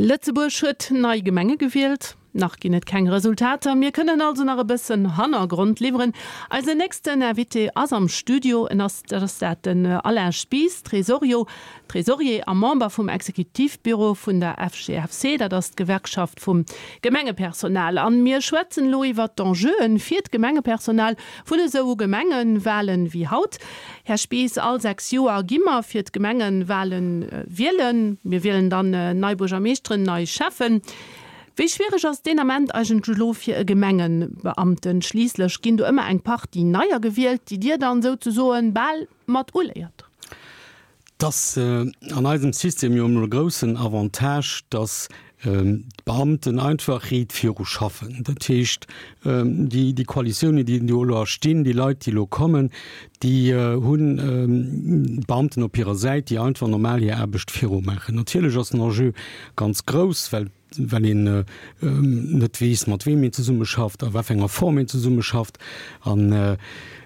Lëtzebuerg huet nei Gemenge gewielt. Nach ginn et keng Resultater, mir kënnen also nach e bëssen Hannergrond liwweren. Eisen nächsten Invité ass am Studio, en ass, dat ass dat, den Alain Spies, Tresorio, Tresorier a Member vum Exekutivbüro vun der FGFC, dat ass d'Gewerkschaft vum Gemengepersonal. An mir schwätzen elo iwwert d'Enjeuen fir d'Gemengepersonal vun esou Gemengewalen wéi haut. Här Spies, all 6 Joer gi mer fir d'Gemengenwalen wielen. Mir wielen dann nei Buergermeeschteren, nei Schäffen. Wéi schwiereg ass deen Ament eigentlech elo fir e Gemengebeamten? Schliisslech ginn do ëmmer eng Partie Neier gewielt, déi Dir dann souzesoen bal mat uléiert. Et ass an eisem System jo emol e groussen Avantage, dass d'Beamten einfach riit viru schaffen. Dat heescht, déi Koalitiounen, déi do elo erstinn, déi Leit, déi elo kommen, déi hunn d'Beamten op hirer Säit, déi einfach normal hir Aarbecht virumaachen. Natierlech ass den Enjeu ganz grouss, well well een net weess, mat weem een zesummeschafft, a wat fir enger Form een zesummeschafft, an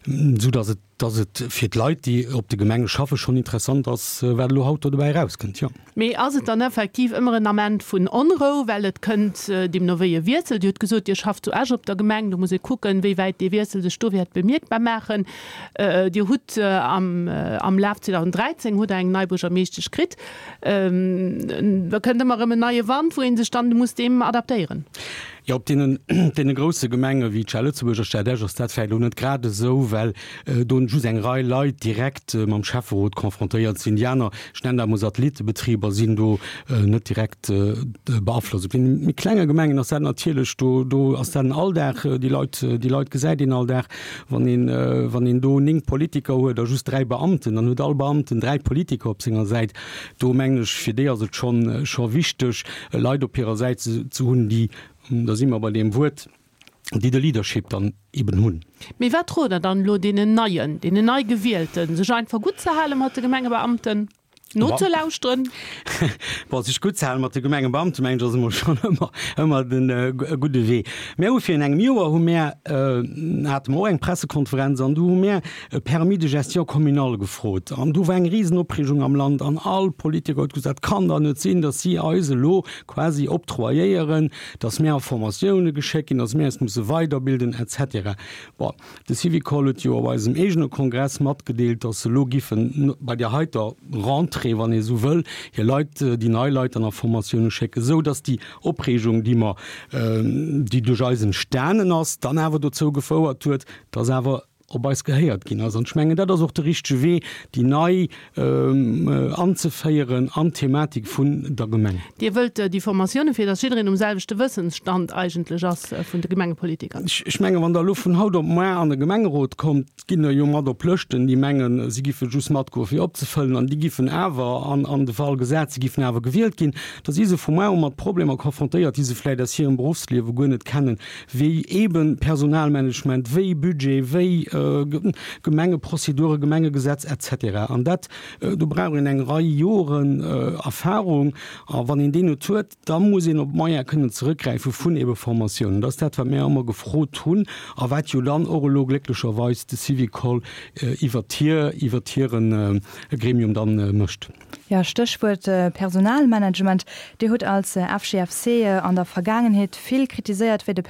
esou datt et datt et fir d'Leit, déi op de Gemenge schaffen, schonn interessant ass, wat elo haut do dobäi erauskënnt, jo. Mee ass et dann effektiv ëmmer en Ament vun Onrou, well et kënnt deemno wéi e Wiessel? Dir hutt gesot, Dir schafft zu Esch op der Gemeng, do muss ee kucken, wéi wäit dee Wiessel sech do wäert bemierkbar maachen. Dir hutt am am Laf 2013 hutt Der eng nei Buergermeeschtesch kritt. Da kënnt ëmmer erëm en neie Wand, wou ee sech dann muss deem adaptéieren. Jo, op deenen, deene grousse Gemenge wéi d'Stad Lëtzebuerg a Stad Esch ass dat vläicht elo net grad esou, well do just eng Rei Leit direkt mam Schäfferot confrontéiert sinn. Déi aner, ech nennen dat emol Satellittebetriber, sinn do net direkt beaflosst. Op deene méi klenge Gemengen ass dat natierlech, do, do ass dat en Alldag, déi Leit, déi Leit gesäit een all Dag. Wann een, wann een do 9 Politiker huet a just 3 Beamten, dann huet all Beamten 3 Politiker op senger Säit. Do mengen ech, fir déi ass et schonn, scho wichteg, Leit op hirer Säit ze, ze hunn, déi, da si mer bei deem Wuert, déi de Leadership dann eben hunn. Mee wat rot Der dann elo deenen Neien, deenen Neigewielten, sech einfach gutt ze hale mat de Gemengebeamten? Nozelauschteren. Bon, sech gutt ze halen mat de Gemengebeamten, mengen ech, ass emol schonn ëmmer, ëmmer den gudde Wee. Mär hu virun engem Joer hu mär, hate mer och eng Pressekonferenz an do hu mär e Permis de gestion communale gefrot. An do war eng Risenopreegung am Land an all Politiker huet gesot, dat kann dach net sinn, datt si eis elo quasi octroyéieren, datt mär a Formatioune geschéckt ginn, datt mär eis musse weiderbilden et cetera. Bon, De Syvicol huet jo op eisem eegene Kongress matgedeelt, datt se elo giffen bei där heiter Rentrée, wann ee sou wëll, hir Leit, déi nei Leit dann a Formatioune schécken, esou datt déi Opreegung, déi mer, déi duerch eis entstanen ass, dann awer dozou gefouert huet, datt awer op eis gehéiert ginn ass. An ech mengen, dat ass och de richtege Wee, déi nei anzeféieren an d'Thematik vun der Gemeng. Dir wëllt déi Formatioune fir datt jiddereen um selwechte Wëssensstand eigentlech ass vun de Gemengepolitiker? Ech mengen, wann Der elo vun haut op muar an e Gemengerot kommt, ginn der jo mat op Lëschten, déi mengen, si giffe just matgoe fir opzefëllen an déi giffen awer, an de Fall gesat, si giffen awer gewielt ginn, da si se vu muar u mat Problemer konfrontéiert, déi se vläicht aus hirem Beruffsliewe guer net kennen, wéi eebe Personalmanagement, wéi Budget, wéi Gemengeprozeduren, Gemengegesetz et cetera. An dat, do brauch een eng Rei Joren Erfahrung. A wann een déi net huet, da muss een op Moyene kënnen zeréckgräife vun eebe Formatiounen. Dat ass dat, wat mir ëmmer gefrot hunn a wat jo dann och elo glécklecherweis de Syvicol iwwert hir, iwwert hire Gremium dann mécht. Jo, Stéchwuert Personalmanagement. Dir hutt als FGFC an der Vergaangenheet vill kritiséiert, wéi de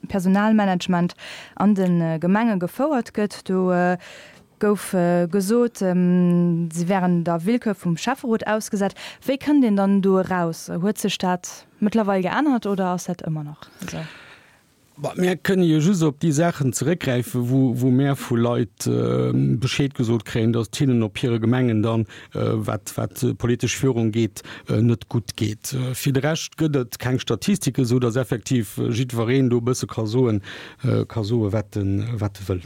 Personalmanagement an de Gemenge gefouert gëtt. Do gouf gesot, si wären der Willkür vum Schäfferot ausgesat. Wéi kënnt een dann do eraus? Huet sech dat mëttlerweil geännert oder ass dat ëmmer nach esou? Mär kënne jo just op déi Saachen zeréckgräifen, wou mär vu Leit Bescheed gesot kréien, datt et hinnen op hire Gemengen dann, wat d'politesch Führung geet, net gutt geet. Fir de Rescht gëtt et keng Statistiken, esou datt effektiv jiddwereen do e bësse ka soen, wat e wëll.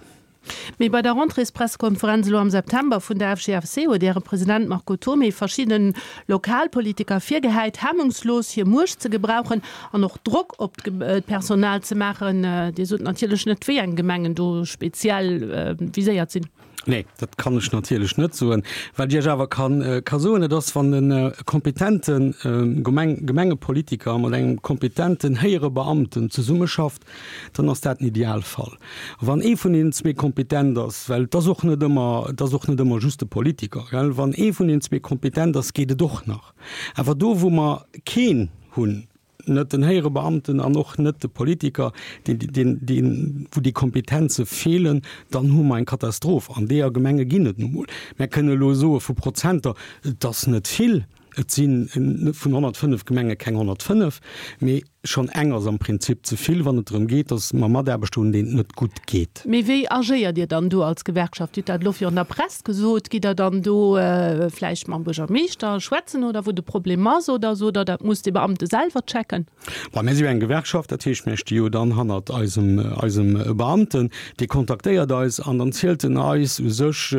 Mee bei der Rentréespressekonferenz elo am September vun der FGFC huet Äre President Marco Thomé verschidde Lokalpolitiker virgehäit, hemmungslos hir Muecht ze gebrauchen an och Drock op d'Personal ze maachen. Dir sot natierlech net, wéi eng Gemengen do speziell viséiert sinn. Nee, dat kann ech natierlech net soen. Wat ech Iech awer ka soen, dat ass, wann e kompetente Gemengepolitiker mat engem kompetenten héijere Beamten zesummeschafft, dann ass dat den Idealfall. Wann ee vun deenen zwee kompetent ass, well et ass och net ëmmer, et ass och net ëmmer just de Politiker, gell, wann ee vun deenen zwee kompetent ass, geet et och nach. Awer do, wou mer keen hunn, net den héijere Beamten an och net de Politiker, deen, deen, deen, wou déi Kompetenze feelen, dann hu mer eng Katastroph. An deeër Gemenge ginn et nu mol. Mär kënne elo soe vu Prozenter, et ass net vill, et si vun 105 Gemenge keng 105, mee schonn eng ass am Prinzip ze vill, wann et drëm geet, datt mer Mataarbechter hunn, deenen et net gutt geet. Mee wéi agéiert Dir dann do als Gewerkschaft? Dir hutt dat elo virun der Press gesot. Gitt Der dann do vläicht mam Buergermeeschter schwätzen oder wou de Problem ass oder sot Der, dat muss de Beamte selwer checken? Bon, mir si jo eng Gewerkschaft, dat heescht, mir sti jo dann hannert eisem, eisem Beamten. Dee kontaktéiert eis an dann zielt en eis u sech,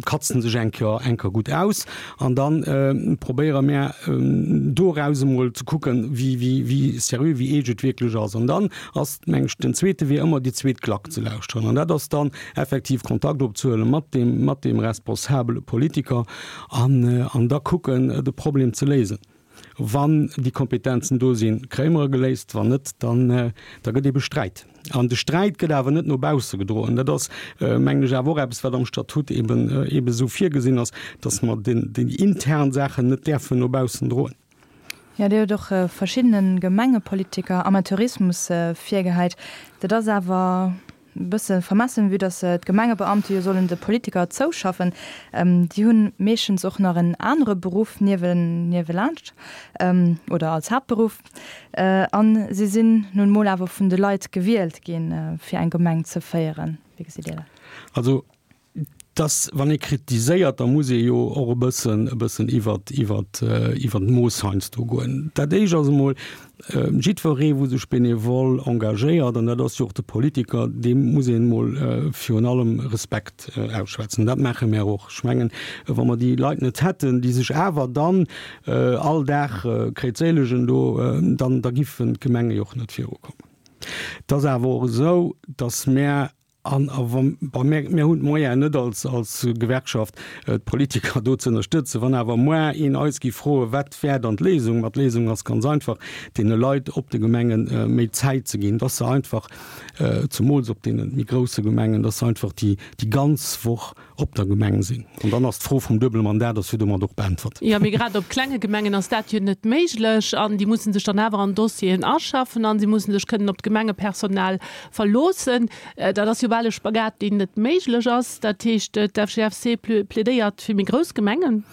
katzt en sech eng Kéier, eng Kéier gutt aus an da probéiere mär doraus emol ze kucken, wéi, wéi, wéi seriö, wéi eescht et wierklech ass. An dann ass, meng ech, den zweete Wee ëmmer déi zweet Klack ze lauschteren. An dat ass dann effektiv Kontakt opzehuele mat deem, mat deem responsabele Politiker an, an da kucken, de Problem ze léisen. Wann déi Kompetenzen do sinn, kréie mer e geléist, wann net, dann, da gëtt ebe Sträit. An de Sträit gëtt awer net no bausse gedroen. Dat ass, mengen ech, awer och eppes, wat am Statut eben, eben esou virgesinn ass, dass mer den, déi intern Saachen net däerfen no baussen droen. Jo, Dir hutt och verschiddene Gemengepolitiker Amateurismus virgehäit. Dat ass awer e bësse vermessen, vue dass d'Gemengebeamte jo sollen de Politiker zouschaffen. Déi hunn meeschtens och nach en anere Beruff niewelaanscht oder als Haaptberuff. A si sinn nun emol awer vun de Leit gewielt ginn, fir eng Gemeng ze féieren. Wéi gesitt Dir dat? Also Dass, wann ee kritiséiert, da muss ee jo och e bëssen, e bëssen iwwert, iwwert, iwwert d'Mooss heiansdo goen. Dat Éischt ass emol, jiddweree wou sech benevol engagéiert, an dat ass jo och de Politiker, deem muss een emol virun allem Respekt ausschwätzen. Dat maache mär och. Ech mengen, wa mer déi Leit net hätten, déi sech awer dann all Dag kréizéilegen do, dann, da giffen d'Gemenge jo och net virukommen. Et ass awer och esou, dass mär An a wa mir, mir hunn d'Moyenen net als, als Gewerkschaft, d'Politiker do ze ënnerstëtzen. Wann awer moar een eis géif froen, wat wär dann d'Léisung? Ma d'Léisung ass ganz einfach, deene Leit op de Gemenge méi Zäit ze ginn, dass se einfach, zemools op deene méi grousse Gemengen, dass se einfach déi, déi ganz Woch op der Gemeng sinn. An dann ass d'Fro vum duebele Mandat ass jo domat och beäntwert. Jo, mee grad op klenge Gemengen ass dat jo net méiglech an déi musse sech dann awer an Dossieren aschaffen an si musse sech kënnen op d'Gemengepersonal verloossen. Dat ass jo bal e Spagat, deen net méiglech ass. Dat heescht, d'FGFC plädéiert fir méi grouss Gemengen.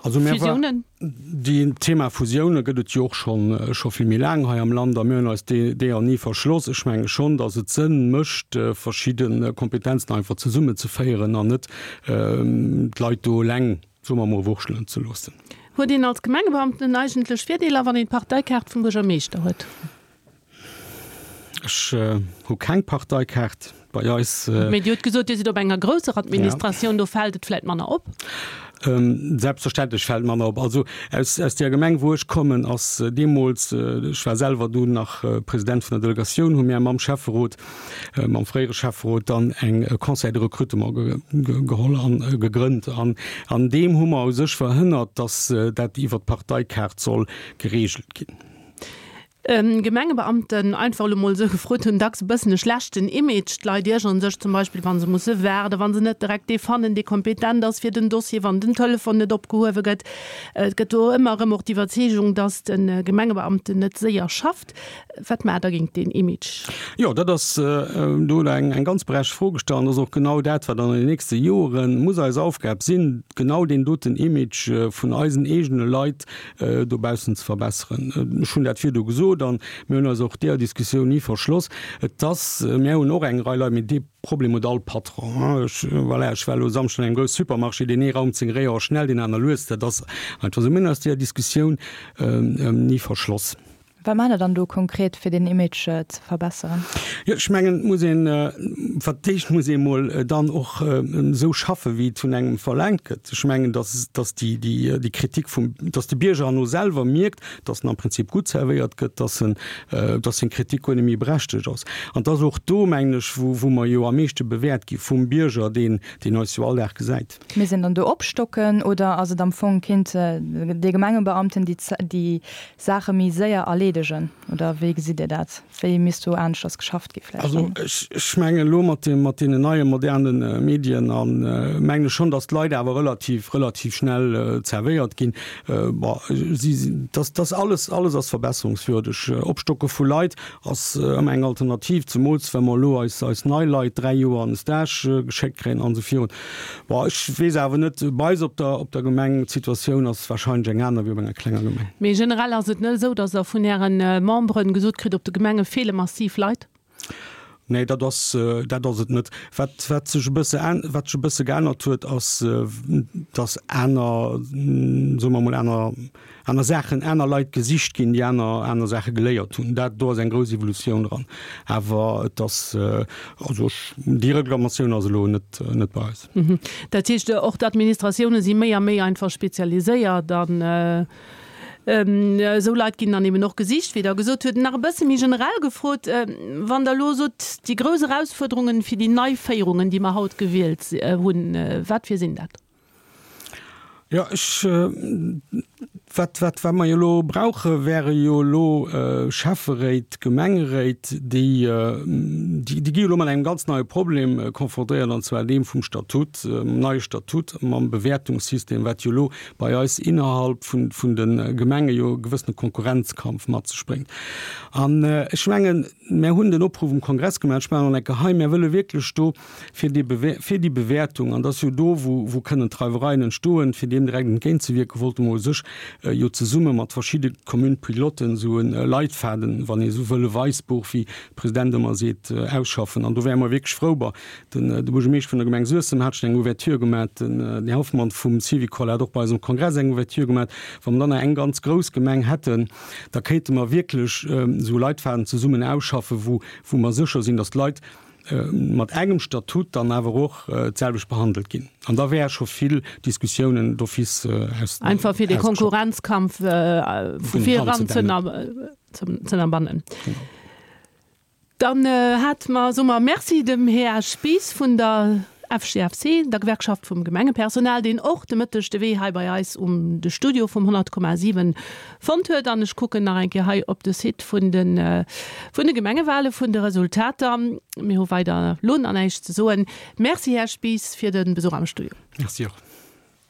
Also mir Fusiounen? Deen Thema Fusioune gëtt et jo och schonn scho vill méi laang hei am Land a mir hunn eis deeër ni verschloss. Ech menge schonn, datt et Sënn mécht, verschidde Kompetenzen einfach zesummezeféieren an net d'Leit do eleng, soe mer emol, wurschtelen ze loossen. Huet een als Gemengebeamten eigentlech Virdeeler, wann een d'Parteikaart vum Buergermeeschter huet? Ech hu keng Parteikaart bei eis. Mee Dir hutt gesot, Dir sidd op enger grousser Administratioun, do fält et vläit manner op? Selbstverständlech fält manner op. Also aus, aus där Gemeng, wou ech kommen, ass deemools, ech war selwer dunn nach President vun der Delegatioun, hu mir mam Schäfferot, mam fréiere Schäfferot dann eng Conseil de recrutement geholl an gegrënnt. An an deem hu mer u sech verhënnert, datt dat iwwer d'Parteikaart soll geregelt ginn. Gemengebeamten, einfach elo mol esou gefrot, hunn dacks e bëssen e schlechten Image. D'Leit iergeren sech zum Beispill, wa se musse waarden, wa se net direkt dee fannen, dee kompetent ass fir den Dossier, wann den Telefon net opgehuewe gëtt. Et gëtt do ëmmer erëm och d'Iwwerzeegung, datt de Gemengebeamten net séier schafft. Wat maacht Der géint deen Image? Jo, dat ass, do hutt Der eng ganz berechtigt Fro gestallt. An dat ass och genau dat, wat an den nächste Jore muss eis Aufgab sinn, genau deen doten Image vun eisen eegene Leit dobaussen ze verbesseren. Ech hunn dat virdu gesot an mir hunn eis och deeër Diskussioun ni verschloss. Et ass, mir hunn och eng Rei Leit, mee dee Problem huet all Patron. Ech, voilà, ech war elo e Samschden an engem grousse Supermarché, deen ee raumt seng Réier schnell, deen aner lues. Dat ass einfach esou. Mir hunn eis deeër Diskussioun ni verschloss. Wat maacht Der dann do konkret, fir deen Image ze verbesseren? Jo, ech mengen, et muss een, fir d'éischt muss ee mol dann och esou schaffen, wéi et vun engem verlaangt gëtt. Ech mengen, dass, dass déi, déi, déi Kritik vum, dass de Bierger herno selwer mierkt, dass en am Prinzip gutt servéiert gëtt, dass en, dass seng Kritik guer net méi berechtegt ass. An et ass och do, mengen ech, wou, wou mer jo am meeschte bewäert gi vum Bierger, deen, deen eis jo all Dag gesäit. Misst een dann do opstocken oder ass et am Fong, kéint dee Gemengebeamten déi, déi Saache méi séier erleedegen oder wéi gesitt Dir dat? Wéi misst do aneschters geschafft gi vläicht Also dann? ech, ech mengen elo mat dem, mat deenen neie moderne Medien a mengen ech schonn, datt d'Leit awer relativ, relativ schnell zerwéiert ginn. Bon, si, dass, dass alles, alles ass verbesserungswürdeg. Opstocke vu Leit ass ëmmer eng Alternativ, zemools wa mer elo eis, eis nei Leit 3 Joer an de Stage geschéckt kréien an esou virun. Bon, ech weess awer net, bei eis op der, op der Gemeng, d'Situatioun ass wahrscheinlech eng aner wéi op enger klenger Gemeng. Mee generell ass et net esou, datt Der vun Äre Memberen gesot kritt, op de Gemenge feele massiv Leit? Nee, dat ass, dat ass et net. Wat, wat sech e bësse, wat sech e bësse geännert huet, ass, datt aner, soe mer emol, aner, aner Saachen, aner Leit gesicht ginn, déi aner, aner Saache geléiert hunn. Dat, do ass eng grouss Evolutioun dran. Awer et ass, also ech, déi Reklamatioun ass elo net, net bei eis. Dat heescht, och d'Administratioune si méi a méi einfach spezialiséiert an esou Leit ginn dann eben och gesicht, wéi Der gesot hutt. Nach e bësse méi generell gefrot, Wann Der elo sot, déi grouss Erausfuerderungen fir déi nei Féierungen, déi mer haut gewielt hunn, wat fir sinn dat? Jo, ech, wat, wat, wat mer jo elo brauche wäre jo elo Schäfferéit, Gemengeréit, déi, déi, déi gi jo elo mat engem ganz neie Problem konfrontéiert, an zwar deem vum Statut, mam neie Statut, mam Bewäertungssystem, wat jo elo bei eis innerhalb vun, vun de Gemenge jo e gewëssene Konkurrenzkampf mat sech bréngt. An ech mengen, mär hunn den Opruff um Kongress gemaach, ech maachen en eng Kéier hei, mär wëlle wierklech do fir déi fir déi Bewäertung, an dat ass jo do, wou, wou kënnen d'Reiwereien entstoen, fir deem direkt entgéintzewierken, wollte mer u sech jo zesumme mat verschidde Communes-piloten esou e Leitfaden, wann ee esou wëll, e Weissbuch, wéi de President ëmmer seet, ausschaffen. An do wäre mer wierklech frou. Bon, den, de Buergermeeschter vun der Gemeng Suessem hat schonn eng Ouverture gemaach, den Här Hoffmann vum Syvicol hat och bei eisem Kongress eng Ouverture gemaach. Wa mer dann nach eng ganz grouss Gemeng hätten, da kéinte mer wierklech esou e Leitfaden zesummen ausschaffen, wou, wou mer sécher sinn, dass d'Leit, mat engem Statut dann awer och d'selwecht behandelt ginn. An da wäre scho vill Diskussiounen d'office aus. Einfach fir de Konkurrenzkampf vu vir eran ze ënnerbannen. Dann hate mer, soe mer Merci dem Här Spies vun der FGFC, der Gewerkschaft vum Gemengepersonal, deen och de Mëtteg de Wee hei bei eis um de Studio vum 100,7 fonnt huet. An ech kucken nach eng Kéier hei op de Site vun de vun de Gemengewale, vun de Resultater. Mir hu weider elo nach näischt ze soen. Merci, Här Spies, fir de Besuch am Studio. Merci och.